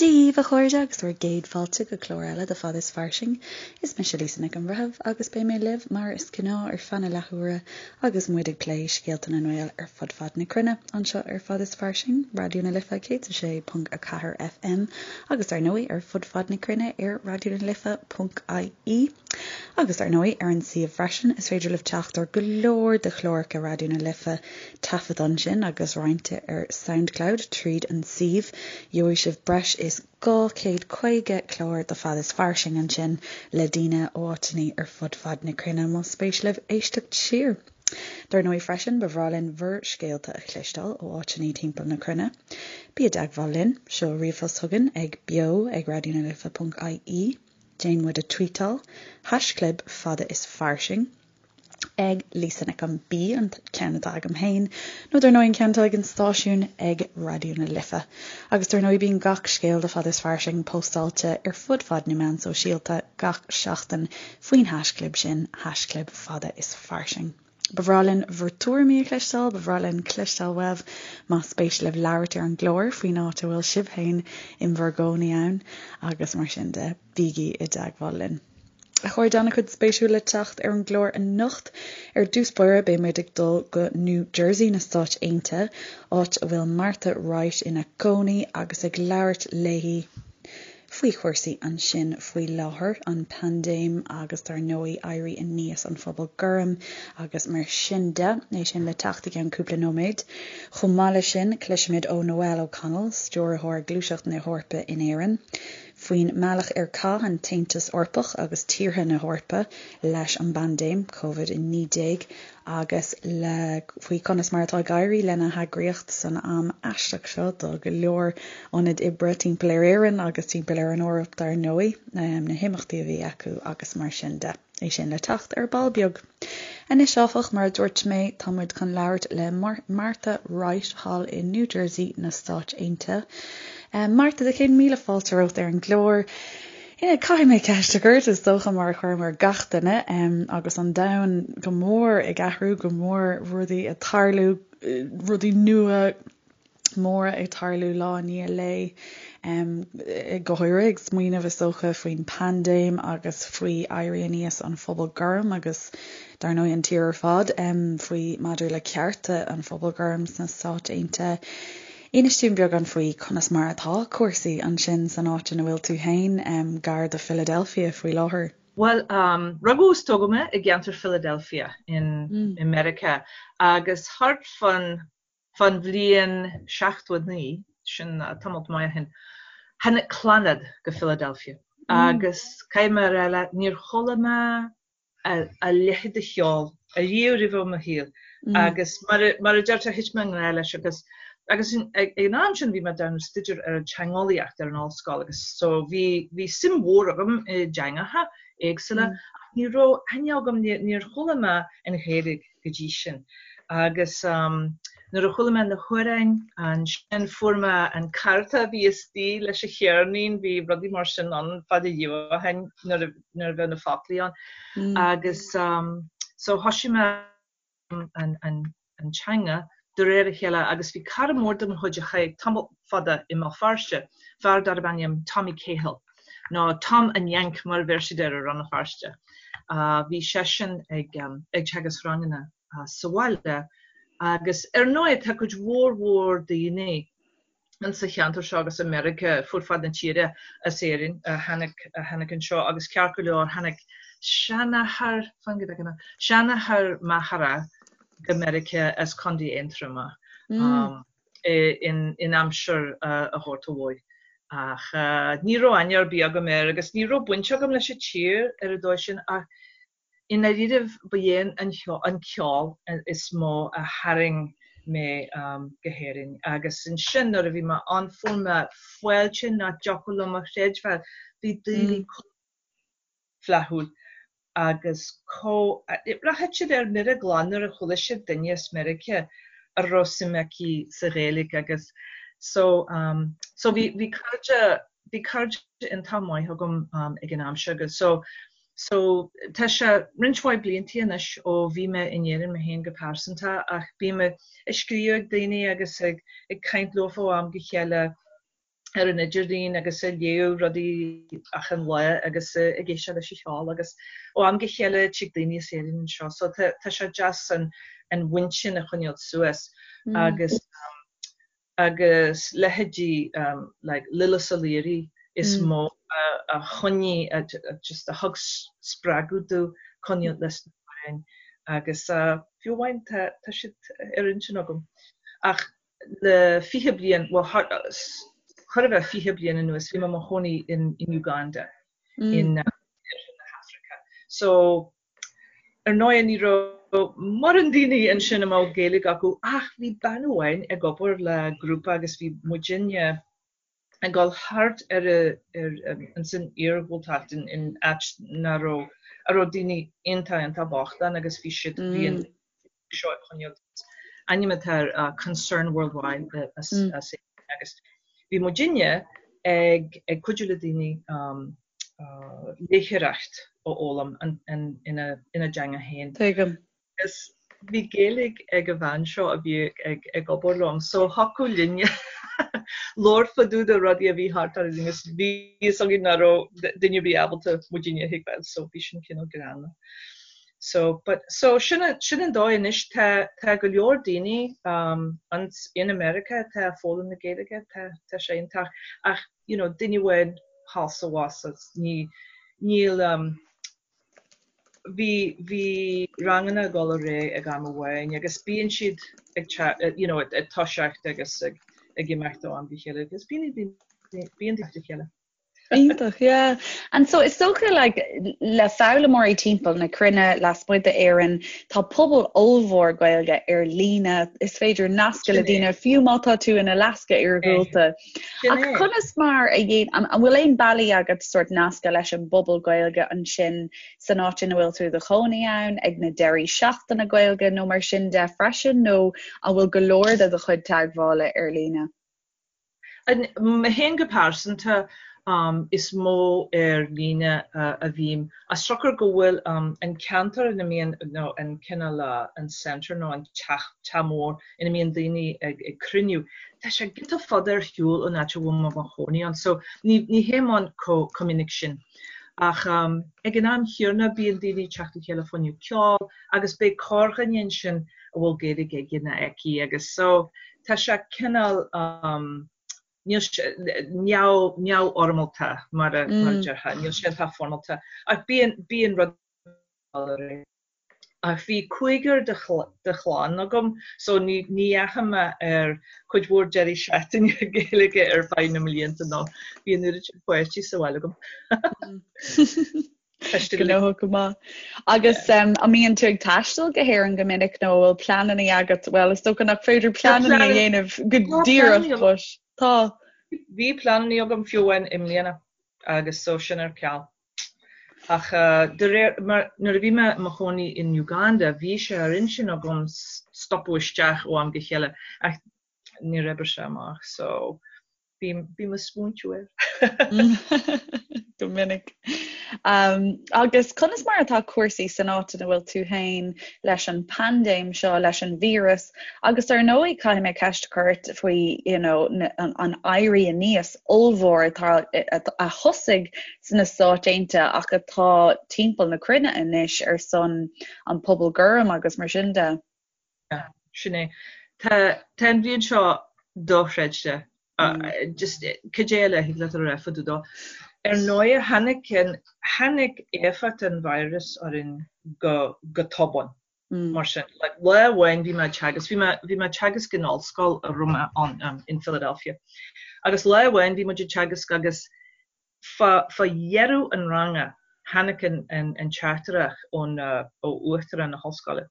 Dia daoibh, a chairde, agus bhur gcéad fáilte go clár eile de Fada is Fairsing. Is mise Lisa Nic an Bhreithimh agus beidh mé libh mar is gnáth ar feadh na leathuaire agus muid ag plé scéalta na nGael ar fud fad na cruinne anseo ar Fada is Fairsing, Raidió na Life 106.4 FM agus dar ndóigh ar fud fad na cruinne ar raidionalife.ie. Agus dar ndóigh ar an suíomh freisin is féidir libh teacht ar go leor de chláracha Raidió na Life taifeadta ansin agus roinnte ar Soundcloud tríd an suíomh. Gheobhaidh sibh breis is 250 clár de Fada is Fairsing ansin le daoine ó áiteanna ar fud fad na cruinne más spéis libh éisteacht siar. Dar ndóigh freisin ba bhreá linn bhur scéalta a chloisteáil ó áiteanna timpeall na cruinne. Bí i dteagmháil linn, seol ríomhphost chugainn ag beo ag raidionalife.ie, déan muid a tweetáil, haischlib fada is fairsing. ag Lisa Nic an B, an ceann atá agam féin, nó dar ndóigh an ceann atá ag an stáisiún ag Raidió na Life. Agus dar ndóigh bíonn gach scéal de Fada is Fairsing póstáilte ar fud fad na meán sóisialta gach seachtain faoin haischlib sin, haischlib Fada is Fairsing. Ba bhreá linn bhur tuairimí a chloisteáil, ba bhreá linn cloisteáil uaibh más spéis libh labhairt ar an gclár faoin áit a bhfuil sibh féin in bhur gcónaí ann agus mar sin de. Bígí i dteagmháil linn. A chairde, an-chuid spéisiúil le teacht ar an gclár anocht. Ar dtús báire beidh muid ag dul go New Jersey na Stáit Aontaithe, áit a bhfuil Martha Wright ina cónaí agus ag labhairt léi faoi chúrsaí ansin faoi láthair, an paindéim agus dar ndóigh éirí aníos an phobal gorm agus mar sin de. É sin le teacht i gceann cúpla nóiméad. Chomh maith leis sin cloisfimid ó Noelle O'Connell, Stiúrthóir Gluaiseacht na hEorpa in Éirinn. faoin mbealach ar chaith an tAontas Eorpach agus tíortha na hEorpa leis an bpaindéim Covid-19 agus le faoi conas mar atá ag éirí lena heagraíocht san am aisteach seo do go leor ionaid oibre timpeall ar Éirinn agus timpeall ar an Eoraip dar ndóigh, na himeachtaí a bhí acu agus mar sin de. É sin le teacht ar ball beag. Anois, áfach, mar a dúirt mé, tá muid chun labhairt le Martha Wright thall i New Jersey na Stáit Aontaithe. Martha, do chéad míle fáilte romhat ar an gclár. Caithfidh mé ceist a chur ort, is dócha, mar a chuirim ar gach duine, agus an domhan go mór ag athrú, go mór rudaí ag tarlú, rudaí nua, móra ag tarlú lá i ndiaidh lae, go háirithe ag smaoineamh is dócha faoin bpaindéim agus faoi éirí aníos an phobal gorm agus dar ndóigh an tír ar fad faoi maidir le cearta an phobail gorm sna Stáit Aontaithe. Inis dúinn beagán faoi conas mar atá cúrsaí ansin san áit ina bhfuil tú féin, gar do Philadelphia faoi láthair. Bhuel, rugadh is tógadh mé i gceantar Philadelphia in i Meiriceá agus thart fán Fán bhliain 79, sin tamalt maith ó shin, tháinig Clannad go Philadelphia agus caithfidh mé a rá leat, níor chuala mé a leithéid de cheol ariamh roimhe i mo shaol agus mar a deirtear, thit mé i ngrá leis agus agus ag an am sin bhí mé ag déanamh staidéar ar an teangeolaíocht ar an ollscoil agus so bhí bhí suim mhór agam i dteangacha éagsúla ach ní raibh aithne agam, níor chuala mé an Ghaeilge go dtí sin. Agus nuair a chuala mé na hamhráin ansin fuair mé an cárta a bhí istigh leis an cheirnín, bhí rudaí mar sin ann fada riamh ó shin nuair a nuair a bheadh na foclaí ann. Agus so thoisigh mé an an an teanga de réir a chéile agus bhí cara mór de mo chuid a chaith tamall fada i mBéal Feirste, fear darb ainm Tommy Cahill. nó Tom an Yank mar a bheir siad air i Rann na Feirste. Bhí seisean ag teagasc ranganna sa bhaile agus ar ndóigh tá cuid mhór mhór daoine in sa cheantar seo agus i Meiriceá fud fad na tíre as Éirinn a tháinig a tháinig anseo agus ceart go leor tháinig seanathair fan go bhfeice mé seanathair m'athara go Meiriceá as Contae Aontroma. in aimsir an Ghorta Mhóir. Ach ní raibh aithne ar bith agam air agus ní raibh baint agam leis an tír ar an dóigh sin ach i ndáiríribh ba é an ceol is mó a tharraing mé go hÉirinn. Agus ansin nuair a bhí mé ann fuair mé fáilte nach dtiocfadh liom a chreidbheáil. Bhí daoine chomh flaithiúil agus chomh, rachadh siad ar mire glan nuair a chuala siad duine as Meiriceá a raibh suim aici sa Ghaeilge agus so so bhí bhí cairde bhí cairde iontach maith agam ag an am seo agus so so tá sé roinnt mhaith bliantaí anois ó bhí mé in Éirinn mé féin go pearsanta ach bím ag scríobh ag daoine agus ag ag caint leofa ó am go chéile. ar an idirlíon agus ag léamh rudaí achan lá agus ag éisteacht leis an cheol agus ó am go chéile tig daoine as Éirinn anseo so tá tá sé deas an an bhaint sin a choinneáil suas agus agus leithéidí like Lillis O'Leary is mó a a choinnigh a just a thug spreagadh domh coinneáil leis na hamhráin agus fiú amháin tá tá siad ar intinn agam ach le 20 bliain, bhuel chóir a bheith 20 bliain anuas, bhí mé i mo chónaí in Uganda in oirthear na hAfraice. So, ar ndóigh ní raibh mórán daoine ansin a mbeadh Gaeilge acu ach bhí bean amháin ag obair le grúpa agus bhí muidinne ag dul thart ar ins an iargúltacht in áit nach raibh, a raibh daoine iontach iontach bocht ann agus bhí siad, bhí an seo ag coinneáil ainm atá ar Concern Worldwide as agus bhí muidinne ag ag cuidiú le daoine léitheoireacht a fhoghlaim ina ina dteanga féin. Tuigim. Agus bhí Gaeilge ag an bhean seo a bhí ag obair liom so thiocfadh linne labhairt fá dtaobh de rudaí a bhí thart orainn agus bhí fhios againn nach raibh duine ar bith ábalta muidinne a thuigbheáil so bhí sin cineál greannmhar. So but so sin sin an dóigh anois tá tá go leor daoine um ins in America atá ag foghlaim na Gaeilge tá tá sé iontach ach you know duine amháin thall 's abhus ní níl um Bhí, bhí ranganna ag dul ar aghaidh ag am amháin agus bíonn siad ag, you know, ag toiseacht agus ag, ag imeacht ó am go chéile agus bíonn, bíonn daoine le chéile. Iontach, yeah. And so is dócha like, le foghlaimeoirí timpeall na cruinne lasmuigh d'Éirinn, tá pobal ollmhór Gaeilge ar líne, is féidir nascadh le daoine fiú má tá tú in Alaska iargúlta. Ach conas mar a dhéan, an bhfuil aon bealaí agat sórt nascadh leis an bpobal Gaeilge ansin san áit ina bhfuil tú i do chónaí ann, ag na deirí seachtaine Gaeilge nó mar sin de freisin, nó an bhfuil go leor de do chuid teagmhála ar líne? Mé féin go pearsanta, is mó ar líne a bhím. As siocair go bhfuil an ceantar ina mbíonn, nó an cineál an centre nó an teach, teach mór ina mbíonn daoine ag cruinniú, tá sé giota fada ar shiúl ón áit a bhfuil mé i mo chónaí ann so ní ní théim ann chomh minic sin. Ach ag an am chéanna bíonn daoine ag teacht le chéile fá choinne ceol agus beidh corrdhuine ansin a bhfuil Gaeilge aige nó aici agus so tá sé cineál níl sé neamh neamhfhoirmeálta mar a mar a déarfá, níl sé iontach foirmeálta ach bíonn bíonn rud Ach bhí cúigear de chlann agam so ní dheachaigh mé ar cuid mhór deirí seachtaine Gaeilge ar feadh na mblianta nó bhí an oiread sin páistí sa bhaile agam. Gnóthach go maith. Agus an mbíonn tú ag taisteal go hÉirinn go minic nó an bhfuil pleananna agat? Bhuel, is dócha nach féidir pleananna a dhéanamh go díreach but tá. Bhí pleananna agam fiú amháin i mbliana agus so sin ar ceal. Ach de réir mar nuair a bhí mé i mo chónaí in Uganda bhí sé ar intinn agam stopadh isteach ó am go chéile ach níor oibrigh sé amach so bím bím ag smaointiú air. Go minic. Agus conas mar atá cúrsaí san áit ina bhfuil tú féin leis an bpaindéim seo, leis an víreas agus ar ndóigh caithfidh mé ceist a chur ort faoi you know an éirí aníos ollmhór atá a thosaigh sna Stáit Aontaithe ach atá timpeall na cruinne anois ar son an pobal gorm agus mar sin de. Sin é. Tá tá an bhliain seo dochreidte. Just cad é eile a thig leat a rá fá dtaobh dó. Ar ndóigh tháinig an tháinig éifeacht an virus orainn go go tobann. Mar sin, like, lá amháin bhí mé ag teagasc, bhí mé, bhí mé ag teagasc in ollscoil a raibh mé ann, um, in Philadelphia. Agus lá amháin bhí muid ag teagasc agus Fá dheireadh an ranga tháinig an teachtaireacht ón ó uachtarán na hollscoile.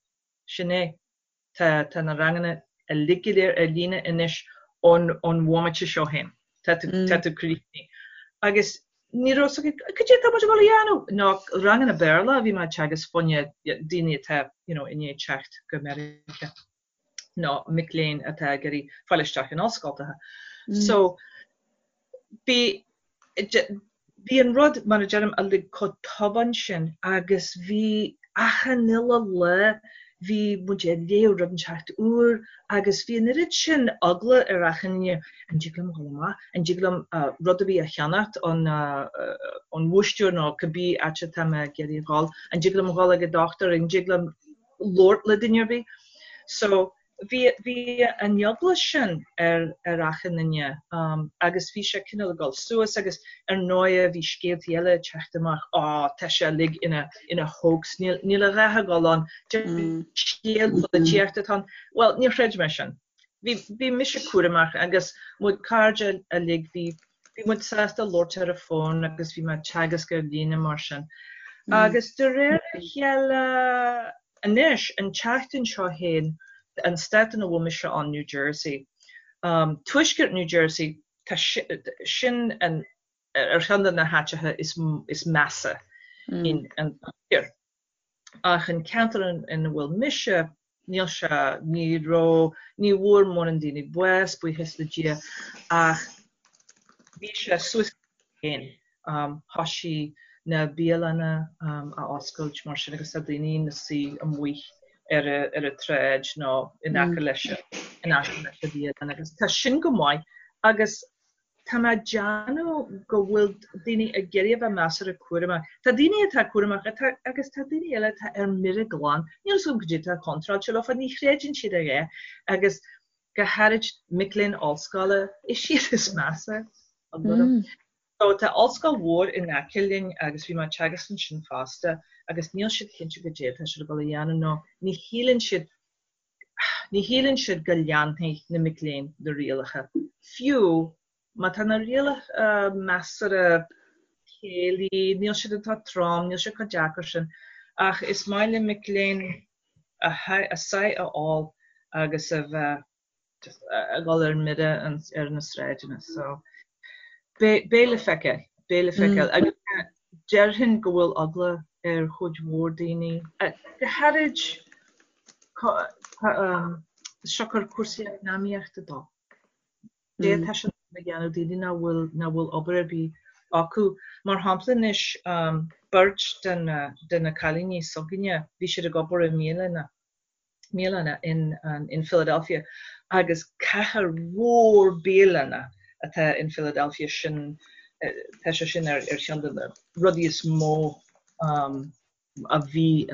Sin é. Tá tá na ranganna uilig go léir ar líne anois ón ón bhomaite seo féin. Tá tú tá tú críochnaithe. Agus ní raibh fhios againn cad é atá muid ag dul a dhéanamh? Nó ranganna Béarla a bhí mé ag teagasc fá choinne daoine atá you know i ndiaidh teacht go Meiriceá. nó mic léinn atá ag iarraidh fáil isteach in ollscoltacha. So bhí bhí an rud, mar a deirim, uilig chomh tobann sin agus bhí achan uile lá. Bhí muid ag léamh rud inteacht úr agus bhí an oiread sin eagla ar achan duine, an dtig liom dhul amach, an dtig liom rud ar bith a cheannacht ón ón bhúistéir nó cibé áit atá mé ag iarraidh a dhul, an dtig liom dhul ag an dochtúir, an dtig liom labhairt le duine ar bith. So bhí bhí an eagla sin ar ar achan duine agus bhí sé cineál ag dul suas agus ar ndóighe bhí scéaltaí eile ag teacht amach, á tá sé uilig ina ina hoax, níl níl a dhath ag dul ann, scéal polaitíochta atá ann. Bhuel, níor chreid mé sin. Bhí bhí mise cúramach agus mo chairde uilig bhí bhí muid sásta labhairt ar an bhfón agus bhí mé ag teagasc ar líne mar sin. Agus de réir a chéile anois, an tseachtain seo féin, an stát ina bhfuil mise ann, New Jersey, tuaisceart New Jersey, tá sin an ar cheann de na háiteacha is is measa in an tír. Ach an ceantar ina bhfuil mise, níl sé, ní raibh, ní bhfuair mórán daoine bás, buíochas le Dia, ach bhí sé suas féin. Thoisigh na bialanna a oscailt mar sin agus tá daoine ina suí amuigh ar ar an tsráid nó in aice leis in aice leis an bhialann agus tá sin go maith agus Tá mé ag déanamh go bhfuil daoine ag iarraidh a bheith measartha cúramach. Tá daoine atá cúramach atá agus tá daoine eile atá ar mire glan. Níl a fhios agam cad é atá contráilte leofa, ní chreideann siad a dhath agus go háirid mic léinn ollscoile, is iad is measa. So tá ollscoil mhór in aice linn agus bhí mé ag teagasc ansin fosta agus níl siad cinnte cad é atá siad ag dul a dhéanamh nó ní shíleann siad Ní shíleann siad go leanfaidh na mic léinn na rialacha, fiú má tá na rialacha measartha céillí, níl siad iontach trom, níl siad chomh deacair sin, ach is maith le mic léinn a sáith a ól agus a bheith just ag dul ar mire ar na sráideanna. So, beidh le feiceáil, beidh le feiceáil. Agus déarfainn go bhfuil eagla ar chuid mhór daoine, go háirid siocair cúrsaí eacnamaíochta dó. Cad é atá siad a dhéanamh daoine nach bhfuil nach bhfuil obair ar bith acu. Mar shampla anois beirt de na de na cailíní s'againne bhí siad ag obair i mbialanna mbialanna in in Philadelphia agus cathair mhór bialanna atá in Philadelphia sin tá sé sin ar ar cheann de na rudaí is mó a bhí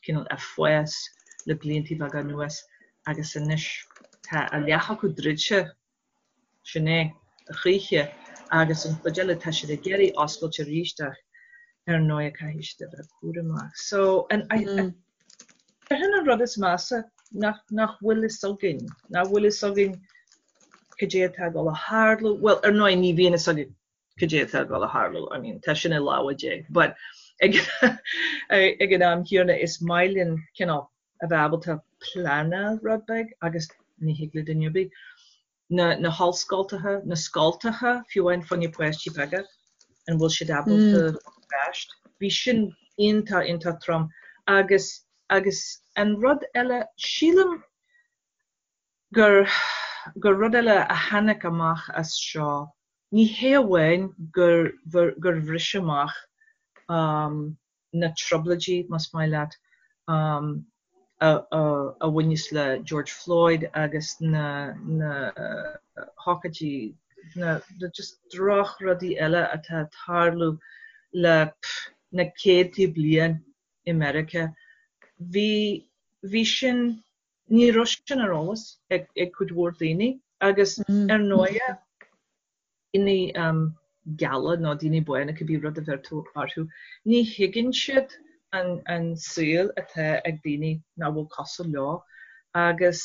cineál ag fás le blianta beaga anuas agus anois tá a leath acu druidte, sin é a choíche agus an chuid eile tá siad ag iarraidh oscailt arís ach ar ndóigh caithfidh siad a bheith cúramach. So an déarfainn an rud is measa nach nach bhfuil fhios againn, nach bhfuil fhios againn cad é atá ag dul a tharlú, bhuel ar ndóigh ní bhíonn fhios againn cad é atá ag dul a tharlú, I mean tá sin i lámha Dé, but ag ag an am chéanna is maith linn cineál a bheith ábalta pleanáil rud beag agus ní thig le duine ar bith. Na na hollscoltacha, na scoltacha, fiú amháin fá choinne páistí beaga, an bhfuil siad ábalta ar ais? Bhí sin iontach iontach trom agus agus an rud eile, sílim gur gur rud eile a tháinig amach as seo, ní hé amháin gur gur bhris amach na trioblóidí, más maith leat, a a bhaineas le George Floyd agus na na hócáidí, na just drochrudaí eile atá ag tarlú le na céadtaí bliain i Meiriceá. Bhí bhí sin Ní raibh sin ar eolas ag cuid mhór daoine agus ar ndóighe daoine geala nó daoine bána, cibé rud a bheir tú orthu, ní thuigeann siad an saol atá ag daoine nach bhfuil cosúil leo agus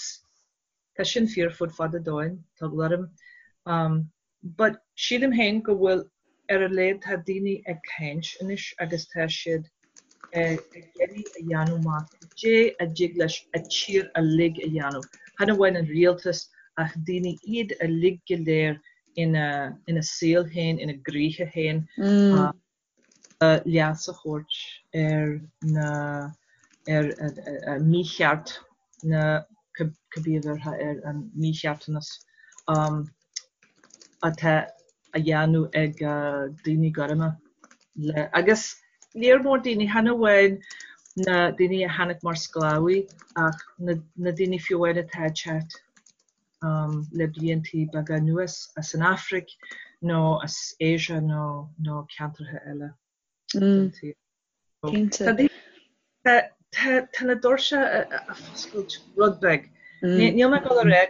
tá sin fíor fud fad an domhain, tá eagla orm. But sílim féin go bhfuil, ar a laghad tá daoine ag caint anois agus tá siad ag iarraidh a dhéanamh amach cad é a dtig leis an tír uilig a dhéanamh, chan amháin an rialtas ach daoine iad uilig go léir ina ina saol féin, ina gcroíthe féin. Leas a thabhairt ar na ar an mícheart na cibé a bhéarfá air an mícheartanas atá á dhéanamh ag daoine gorma le agus léar mór daoine chan amháin. na daoine a tháinig mar sclábhaí ach na daoine fiú amháin atá ag teacht le bliantaí beaga anuas as an Afraic nó as Asia nó nó ceantracha eile den tsaol. Cinnte. Tá na doirse ag foscailt rud beag. Níl mé ag dul a rá,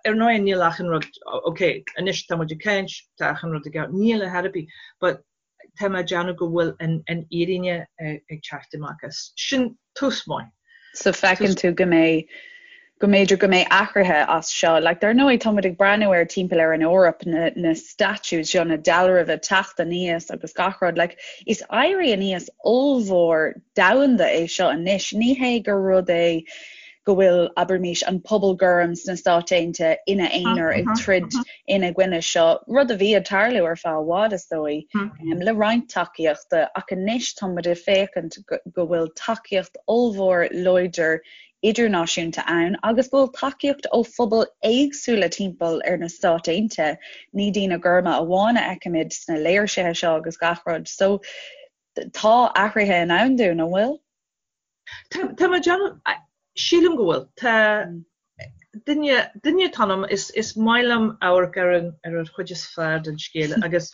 ar ndóigh níl achan rud, ok, anois tá muid ag caint, tá achan rud i gceart, níl ar chor ar bith, but tá mé ag déanamh go bhfuil an fhírinne ag teacht amach as. Sin tús maith. So feiceann tú go mbeidh, go mb'fhéidir go mbeidh athruithe as seo. Like, dar ndóigh, tá muid ag breathnú ar timpeall ar an Eoraip, na, na statues seo, na dealraimh ag teacht aníos agus gach rud. Like, is éirí aníos ollmhór domhanda é seo anois. Ní hé gur rud é go bhfuil, abraimis, an pobal gorm sna Stáit Aontaithe ina aonar ag troid ina gcoinne seo, rud a bhí ag tarlú ar feadh i bhfad, is dóigh, le roinnt tacaíochta, ach anois tá muid ag féachaint go bhfuil tacaíocht ollmhór láidir idirnáisiúnta ann agus go bhfuil tacaíocht ó phobail éagsúla timpeall ar na Stáit Aontaithe, ní daoine gorma amháin a fheicimid sna léirsithe seo agus gach rud. So, tá athruithe i ndán dúinn, an bhfuil? Tá mé ag déanamh, sílim go bhfuil. Tá duine, duine atá ionam, is, is maith liom amharc ar an, ar an chuid is fearr den scéal agus,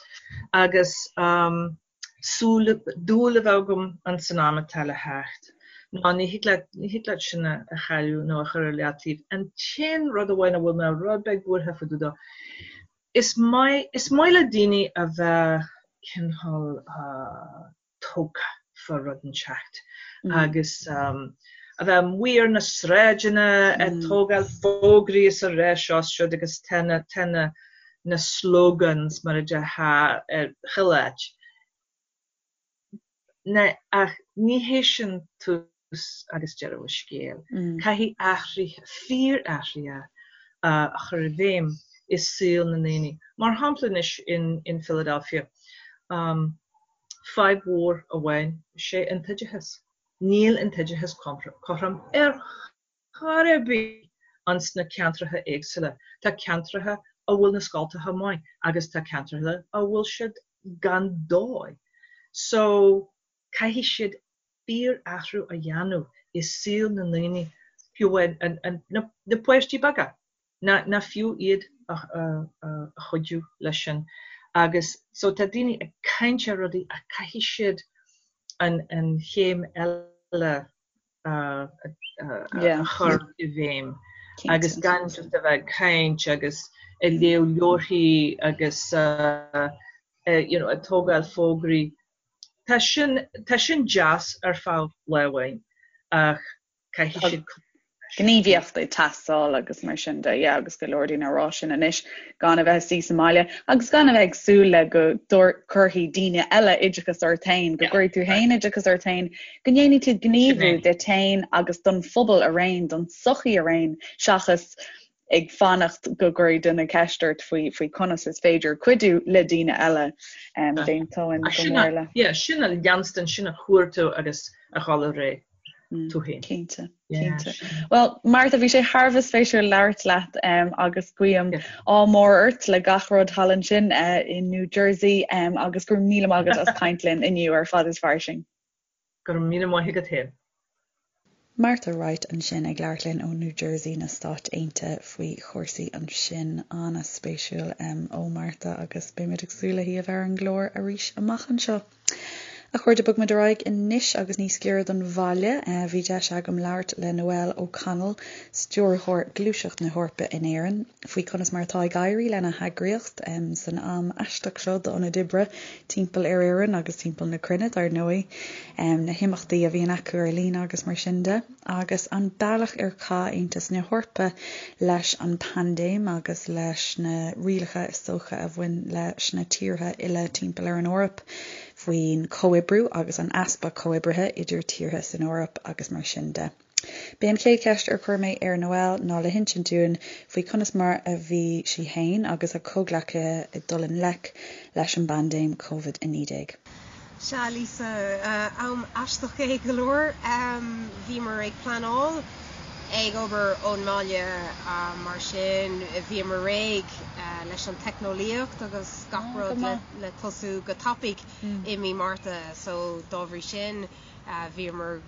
agus um, súil, dúil a bheith agam ins an am atá le theacht. Ná ní thig leat, ní thig leat sin a, a chailleadh nó a chur ar leataobh. An t-aon rud amháin a bhfuil mé rud beag buartha fá dtaobh dó, is maith, is maith le daoine a bheith cineál uh, tógtha fá rud inteacht agus a bheith amuigh ar na sráideanna ag tógáil fógraí is a rá seo is siúd agus tá na tá na na slogans mar a déarfá ar chuile áit. Na ach ní hé sin tús agus deireadh an scéil. Caithfidh athruithe, fíor-athruithe a chur i bhfeidhm i saol na ndaoine. Mar shampla anois in in Philadelphia, Fadhb mhór amháin is ea an t-oideachas. Níl an t-oideachas cothrom ar chor ar bith ins na ceantracha éagsúla. Tá ceantracha a bhfuil na scoltacha maith agus tá ceantracha a bhfuil siad gan dóigh. So, caithfidh siad fíor-athrú a dhéanamh i saol na ndaoine, fiú amháin na páistí beaga. ná fiú iad a chuidiú leis sin agus so tá daoine ag caint ar rudaí ach caithfidh siad an chéim eile a chur i bhfeidhm agus gan just a bheith ag caint agus ag léamh leabharthaí agus you know ag tógáil fógraí. Tá sin, tá sin deas ar feadh lá amháin ach Caithfidh siad cur leis. Gníomhaíocht ag teastáil agus mar sin de, yeah, agus go leor daoine ag rá sin anois, gan a bheith ag suí sa mbaile agus gan a bheith ag súil le go gcuirfidh daoine eile oideachas ort féin, go gcuirfidh tú féin oideachas ort féin, go ndéanfaidh tú gníomhú duit féin agus don phobal araon, don tsochaí araon, seachas ag fanacht go gcuirfidh duine ceist ort faoi faoi conas is féidir cuidiú le daoine eile. D'aontóinn go mór le. Yeah, sin a leanstan, sin a chuartú agus a dhul ar aghaidh tú féin. Cinnte, cinnte. Well, Martha, bhí sé thar a bheith spéisiúil labhairt leat agus guím ádh mór ort le gach rud thall ansin i New Jersey agus go raibh míle maith agat as caint linn inniu ar Fad is Fairsing. Go raibh míle maith agat féin. Martha Wright ansin ag labhairt linn ó New Jersey na Stáit Aontaithe faoi chúrsaí ansin. An-spéisiúil ó Martha agus beimid ag súil léi a bheith ar an gclár arís amach anseo. A chairde, bogfaimid ar aghaidh anois agus níos giorra don bhaile. Bhí deis agam labhairt le Noelle O'Connell, Stiúrthóir Gluaiseacht na hEorpa in Éirinn, faoi conas mar atá ag éirí lena heagraíocht san am aisteach seo d'ionaid oibre timpeall ar Éirinn agus timpeall na cruinne, dar ndóigh, na himeachtaí a bhíonn acu ar líne agus mar sin de, agus an bealach ar chaith Aontas na hEorpa leis an bpaindéim agus leis na rialacha is dócha a bhain leis na tíortha uile timpeall ar an Eoraip faoin chomhoibriú agus an easpa comhoibrithe idir tíortha san Eoraip agus mar sin de. B'é an chéad cheist ar chuir mé ar Noelle ná le hinsint dúinn faoi conas mar a bhí sí fhéin agus a comhghleacaithe ag dul i ngleic leis an bpaindéim Covid-19. Sea, Lisa, am aisteach é go leor. Bhíomar ag pleanáil ag obair ón mbaile, mar sin bhíomar réidh leis an teicneolaíocht agus gach rud le tosú go tapaidh i mí Márta. So dá bhrí sin. Bhíomar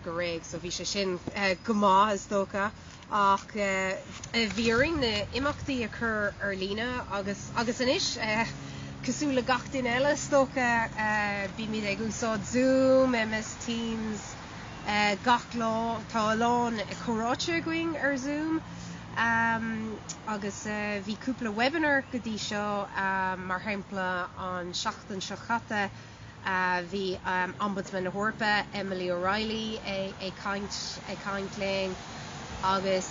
go réidh so bhí sé sin go maith is dócha ach bhí orainn na imeachtaí a chur ar líne agus agus anois cosúil le gach duine eile is dócha bímid ag úsáid Zoom, MS Teams gach lá. Tá a lán comhráite againn ar Zoom agus bhí cúpla webinar go dtí seo mar shampla an seachtain seo chaite Bhí Ombudsman na hEorpa, Emily O'Reilly, ag caint ag caint linn agus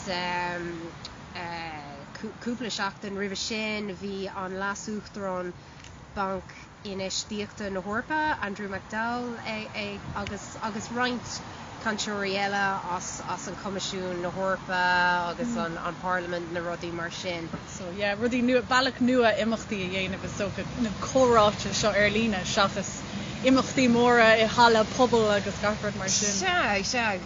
cúpla seachtain roimhe sin bhí an Leas-Uachtarán Banc Infheistíochta na hEorpa, Andrew McDowell, ag agus agus roinnt cainteoirí eile as as an Coimisiún na hEorpa agus an an Parlaimint na rudaí mar sin. So yeah, rudaí nua, bealach nua imeachtaí a dhéanamh is dócha, na comhráite seo ar líne seachas imeachtaí móra i halla pobail agus gach rud mar sin. Sea, sea,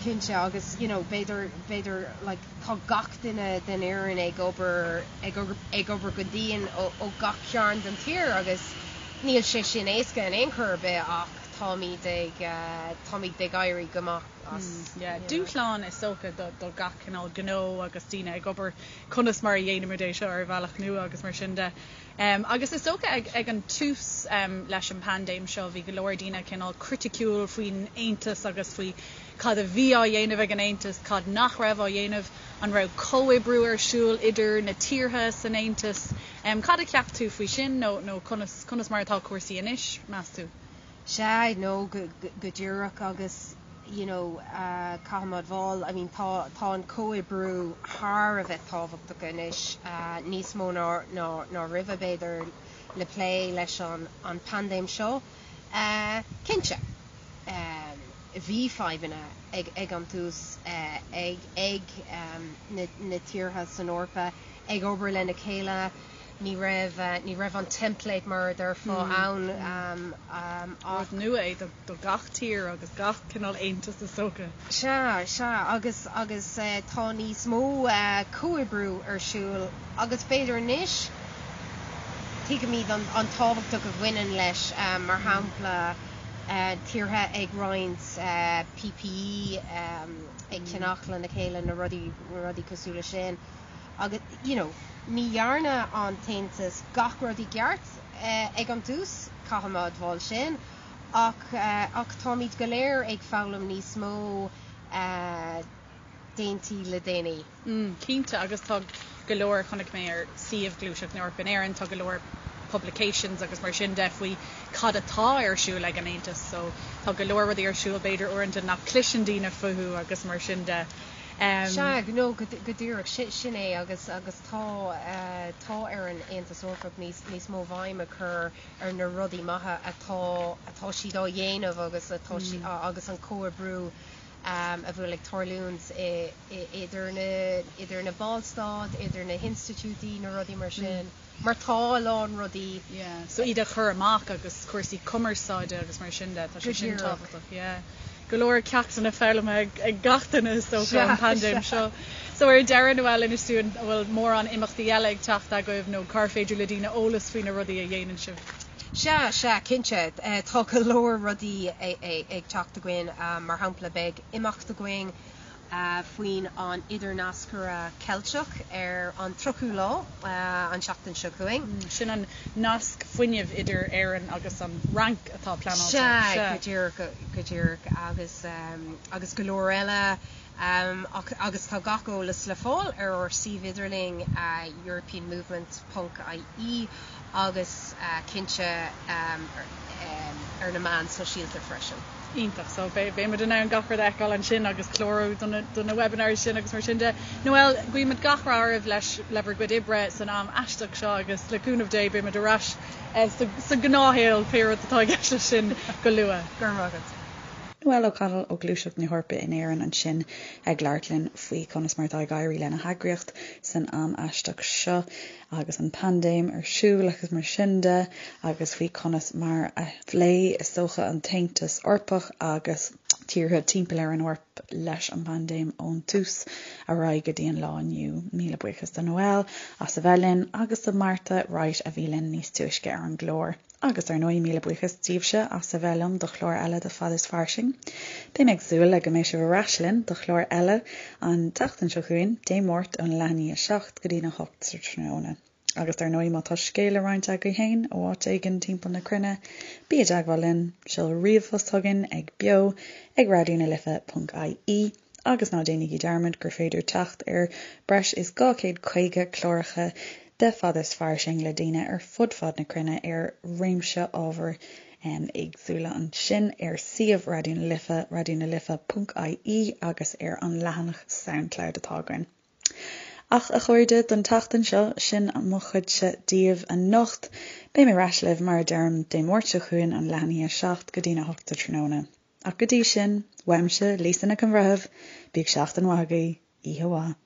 cinnte agus you know b'fhéidir, b'fhéidir like tá gach duine den fhoireann ag obair, ag ag obair go dian ó ó gach cearn den tír agus níl sé sin éasca in aon chor ar bith ach táimid ag, táimid ag éirí go maith. as. Yeah, dúshlán is dócha do gach cineál gnó agus daoine ag obair, conas mar a dhéanaimid é seo ar bhealach nua agus mar sin de. Agus is dócha ag ag an tús leis an bpaindéim seo bhí go leor daoine cineál criticiúil faoin Aontas agus faoi cad a bhí á dhéanamh ag an Aontas, cad nach raibh á dhéanamh, an raibh comhoibriú ar siúl idir na tíortha san Aontas. Cad a cheap tú faoi sin nó nó conas conas mar atá cúrsaí anois, meas tú? Sea, no, go díreach agus you know caithfidh mé a admháil, I mean tá tá an comhoibriú thar a bheith tábhachtach anois, níos mó ná ná ná roimhe b'fhéidir le plé leis an an paindéim seo. Cinnte, bhí fadhbanna ag ag an tús ag ag na na tíortha san Eorpa ag obair lena chéile, Ní raibh, ní raibh an template mar a déarfá ann ach. Rud nua é do gach tír agus gach cineál aontas is dócha. Sea, sea, agus, agus tá níos mó comhoibriú ar siúl agus b'fhéidir anois tuigimid an, an tábhachtach a bhaineann leis, mar shampla tíortha ag roinnt PPE, ag ceannach lena chéile, na rudaí, na rudaí cosúil le sin. Agus, you know, ní dhearna an tAontas gach rud i gceart ag an tús, caithfidh mé a admháil sin, ach, ach táimid go léir ag foghlaim níos mó déantaí le déanaí. Mm, cinnte, agus tá go leor, chonaic mé ar suíomh Gluaiseacht na hEorpa in Éirinn, tá go leor publications agus mar sin de faoi cad atá ar siúl ag an Aontas, so tá go leor rudaí ar siúl b'fhéidir uaireanta nach cloiseann daoine fúthu agus mar sin de. Sea, no, go díreach, sin é, agus agus tá tá ar an Aontas Eorpach níos níos mó bhéim a chur ar na rudaí maithe atá atá siad á dhéanamh agus atá si agus an comhoibriú a bhfuil ag tarlúint idir na idir na ballstáit, idir na hinstitiúidí, na rudaí mar sin. Mar tá a lán rudaí. Yeah, so iad a chur amach agus cúrsaí cumarsáide agus mar sin de, tá sé sin tábhachtach, yeah. Go leor ceachtanna foghlamtha ag gach duine is dócha ón bpaindéim seo. So ar deireadh, Noelle, inis dúinn an bhfuil mórán imeachtaí eile ag teacht agaibh nó cár féidir le daoine eolas faoi na rudaí a dhéanann sibh? Sea, sea, cinnte. Tá go leor rudaí ag teacht againn. Mar shampla, beidh imeacht againn faoin an Idirnascaire Ceilteach ar an 30ú lá an tseachtain seo chugainn. Sin an nasc fuinnimh idir Éirinn agus an Fhrainc atá pleanáilte. Sea, go díreach, go díreach, agus agus go leor eile. Ach agus tá gach eolas le fáil ar ár suíomh idirlín europeanmovement ponc ie agus cinnte ar na meáin sóisialta freisin. Iontach. So beidh muid in ann gach rud a fheiceáil ansin agus clárú do na, do na webinars sin agus mar sin de. Noelle, guímid gach rath oraibh leis, le bhur gcuid oibre san am aisteach seo agus le cúnamh Dé beidh muid ar ais sa, sa ghnáthshaol, pé rud atá i gceist leis sin, go luath. Go raibh maith agat. Noelle O'Connell ó Ghluaiseacht na hEorpa in Éirinn ansin ag labhairt linn faoi conas mar atá ag éirí lena heagraíocht san am aisteach seo agus an paindéim ar siúl agus mar sin de agus faoi conas mar a phléigh is dócha an tAontas Eorpach agus. Tíortha timpeall ar an Eoraip leis an bpaindéim ón tús ar aghaidh go dtí an lá inniu. Míle buíochas do Noel as a bheith linn agus do Martha Wright a bhí linn níos túisce ar an gclár. Agus ar ndóigh míle buíochas daoibhse as a bheith liom do chlár eile de Fad is Fairsing. Beidh mé ag súil le go mbeidh sibh ar ais linn do chlár eile an tseachtain seo chugainn, Dé Máirt ón leath i ndiaidh 7 go dtí'n 8 sa tráthnóna. Agus dar ndóigh má tá scéal le roinnt agaibh féin ó áit éigin timpeall na cruinne, bí i dteagmháil linn, seol ríomhphost chugainn ag beo ag raidionalife ponc ie agus ná déanaigí dearmad gur féidir teacht ar breis is 250 cláracha de Fad is Fairsing le daoine ar fud fad na cruinne ar réimse ábhair éagsúla ansin ar suíomh Raidió na Life, raidionalife ponc ie agus ar an leathanach Soundcloud atá againn. Ach, a chairde, don tseachtain seo, sin mo chuidse daoibh anocht. Beidh mé ar ais libh, mar a deirim, Dé Máirt seo chugainn ón leath i ndiaidh 7 go dtí'n 8 sa tráthnóna. Ach go dtí sin, uaimse, Lisa Nic an Bhreithimh, bíodh seachtain mhaith agaibh, oíche mhaith.